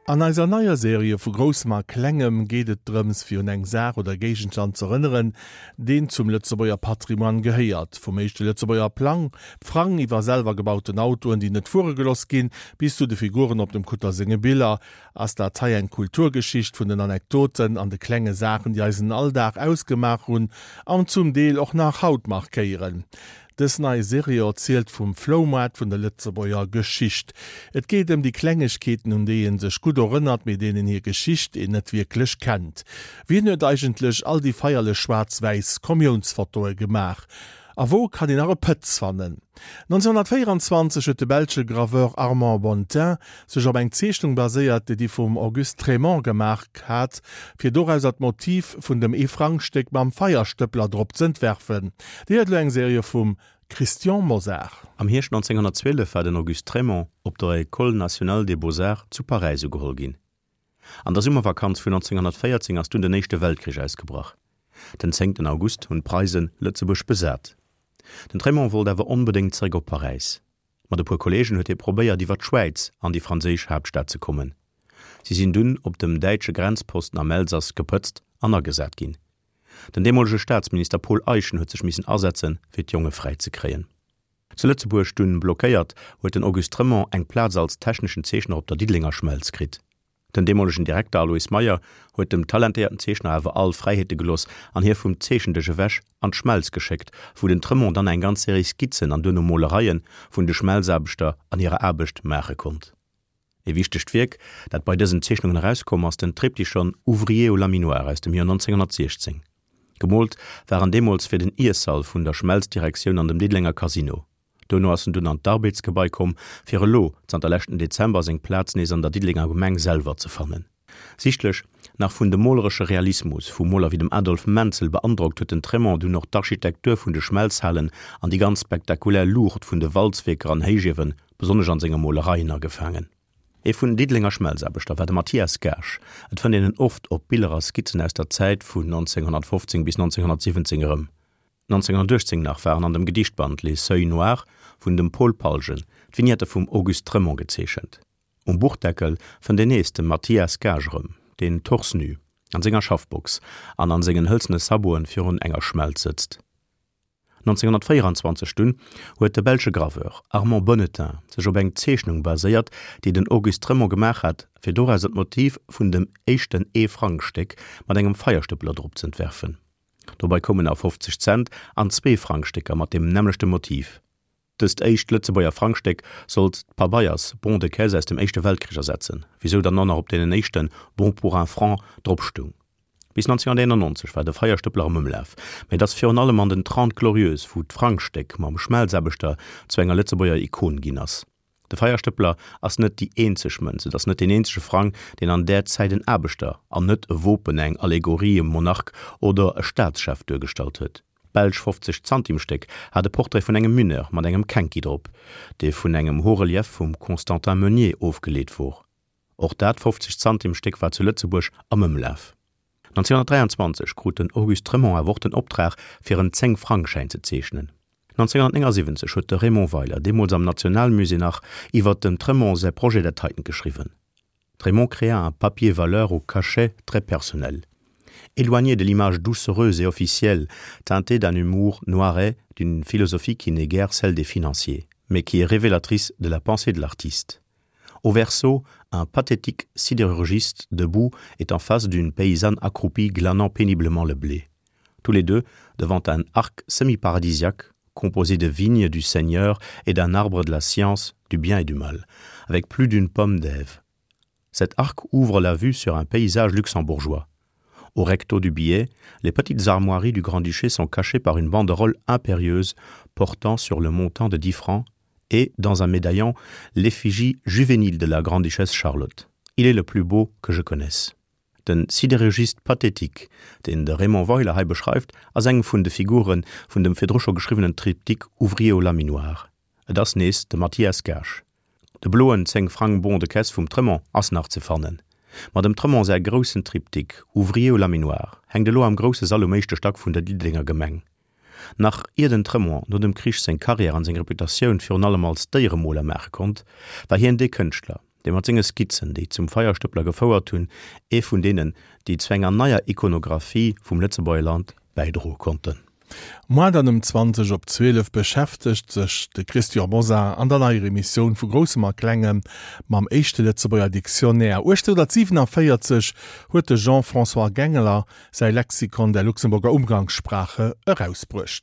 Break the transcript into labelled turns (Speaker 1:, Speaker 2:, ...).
Speaker 1: An eiser neier Serie vu Groussem a Klengem geet et drëms, fir un eng Saach oder Géigenstand z'erënneren, deen zum Lëtzebuerger Patrimoine gehéiert. Vum éischte Lëtzebuerger Plang, Frang, iwwer selwer gebauten Autoen, déi net fuere geloss ginn, bis zu de Figuren op dem Kutter senge Biller, ass dat hei eng Kulturgeschicht vun den Anekdoten an de klenge Saachen, déi eisen Alldag ausgemaach hunn an zum Deel och nach haut markéieren. Dës nei Serie erzielt vum Floumaart vun der Lëtzebuerger Geschicht. Et geet ëm déi Klengegkeeten, un déi ee sech gutt erënnert, mee deenen hir Geschicht een net wierklech kennt. Wien huet eigentlech all déi feierlech schwaarz-wäiss Kommiounsfotoe gemaach? A wou kann een nach e Pëtz fannen? 1924 huet de belsche Graveur Armand Bontin sech op eng Zeechnung baséiert, déi vum Auguste Trémont gemaach hat, fir dorauser d'Motiv vun dem Ee-Frang-Stéck mam Feierstëppler drop z'entwerfen. Dir héiert elo eng Serie vum Christian Mosar.
Speaker 2: Am Hierscht 1912 war den Auguste Trémont op der École nationale des beaux-arts zu Paräis ugeholl ginn. An der Summervakanz vun 1914 ass dunn den Éischte Weltkrich ausgebrach. Den zéngten August hunn d'Preisen Lëtzebuerg besat. Den Trémont wollt awer onbedéngt zeréck op Paräis. Mat e puer Kolleegen huet hie probéiert iwwer d'Schwäiz an déi franséisch Haaptstad ze kommen. Si sinn dunn op dem däitsche Grenzposten am Elsass gepëtzt an agesat ginn. Den deemolege Staatsminister Paul Eyschen huet sech missen asetzen, fir d'Jonge fräi ze kréien. Zu Lëtzebuerg dunn blockéiert, huet den Auguste Trémont eng Plaz als techneschen Zeechner op der Diddelenger Schmelz kritt. Den deemolegen Direkter Alois Meyer huet dem talentéierten Zeechner awer all Fräiheete gelooss an hie vum Zeechendësch ewech an d'Schmelz geschéckt, wou den Tremont dann eng ganz Serie Skizzen an duerno Molereie vun de Schmelzaarbechter an hirer Aarbecht maache konnt. E wichtegt Wierk, dat bei dësen Zeechnungen erauskomm ass den Triptychon Ouvriers au laminoir aus dem Joer 1916. Gemoolt war en deemools fir den Iessall vun der Schmelzdirektioun an dem Diddelenger Casino. Duerno ass en dunn an d'Arbeds-Gebai komm, fir elo, zanter leschten Dezember, seng Plaz nees an der Diddelenger Gemeng selwer ze fannen. Sichtlech nach vun dem moleresche Realismus vu Moler wéi dem Adolphe Menzel beandrockt, huet den Trémont dunn och d'Architektur vun de Schmelzhalen an déi ganz spektakulär Luucht vun de Walzwierker an Héichiewen, besonnesch an senge Molereien, agefaangen. Ee vun den Diddelenger Schmelzaarbechter war de Mathias Gaasch. Et fënnt een en oft op Biller a Skizzen aus der Zäit vun 1915 bis 1917 erëm. 1918 nach waren an dem Gedichtband Les Seuils noirs vun dem Paul Palgen d'Vignette vum Auguste Trémont gezeechent. Um Buchdeckel fënnt een nees de Mathias Gaasch erëm, deen torse nu an senger Schaffbox an an sengen hëlzene Saboten virun enger Schmelz sëtzt. 1924 dunn huet de belsche Graveur Armand Bonnetain sech op eng Zeechnung baséiert, déi den Auguste Trémont gemaach hat, fir dorauser d'Motiv vun dem éischten Ee-Frang-Stéck mat engem Feierstëppeler drop z'entwerfen. Dobei koumen nach 50 Cent an Zweefrangstécker mat deem nämmlechte Motiv. Dëst éischt Lëtzebuerger Frangstéck sollt d'Pabeiers Bon de caisse aus dem Éischte Weltkrich ersetzen, wisou dann och nach op deenen éischte Bon pour un franc drop stung. Bis 1991 war de Feierstëppler am Ëmlaf, mä et ass virun allem an den Trente Glorieuses, wou d'Frangstéck mam Schmelzaarbechter zu enger Lëtzebuerger Ikon ginn ass. De Feierstëppler ass net déi eenzeg Mënz, et ass net deen eenzege Frang, deen an där Zäit en Aarbechter, an net e Wopen, eng Allegorie, e Monarch oder e Staatschef duergestallt huet. D'belsch 50 Zantimstéck hat e Portrait vun engem Mineur mat engem Kenki drop, dee vun engem Haut-relief vum Constantin Meunier ofgeleet wor. Och dat 50 Zantimstéck war zu Lëtzebuerg am Ëmlaf. 1923 krut den Auguste Trémont awer och den Optrag, fir en Zéng-Frang-Schäin ze zeechnen. 1979 huet de Raymond Weiler, deemools am Nationalmusée nach, iwwer dem Trémont säi Projet dat heiten geschriwwen, Trémont créa un papier valeur au cachet très personnel. Éloigné de l'image doucereuse et officielle, teintée d'un humour noiret, d'une philosophie qui n'est guère celle des financiers, mais qui est révélatrice de la pensée de l'artiste. Au verso, un pathétique sidérurgiste debout est en face d'une paysanne accroupie glanant péniblement le blé. Tous les deux devant un arc semi-paradisiaque composé de vignes du Seigneur et d'un arbre de la science, du bien et du mal, avec plus d'une pomme d'Ève. Cet arc ouvre la vue sur un paysage luxembourgeois. Au recto du billet, les petites armoiries du Grand-Duché sont cachées par une banderole impérieuse portant sur le montant de 10 francs et, dans un médaillon, l'effigie juvénile de la Grande-Duchesse Charlotte. Il est le plus beau que je connaisse. Den Sidérurgiste pathétique, deen de Raymond Weiler hei beschreift, ass eng vun de Figure vun dem virdru scho geschriwwenen Triptyque Ouvrier au laminoir. Et ass nees de Mathias Gaasch. De bloen 10 Frang Bon de caisse vum Tremont ass nach ze fannen. Ma dem Tremont säi groussen Triptyque Ouvrier au laminoir hänkt elo am grousse Sall um éischte Stack vun der Diddelenger Gemeng. Nach ier den Tremont no dem Krich seng Karriär an seng Reputatioun virun allem als Déieremoler maache konnt, war hien dee Kënschtler, dee mat senge Skizzen, déi zum Feierstëppler gefouert hunn, ee vun deenen, déi zu enger neier Ikonographie vum Lëtzebuerger Land bäidroe konnten.
Speaker 1: Moar dann ëm 20 op 12 beschäftegt sech de Christian Mosar an der neier Emissioun vu Groussem a Klengem mam éischte Lëtzebuerger Dictionnaire. 1847 huet de Jean-François Gengler säi Lexikon der Luxemburger Umgangssprache erausbruecht.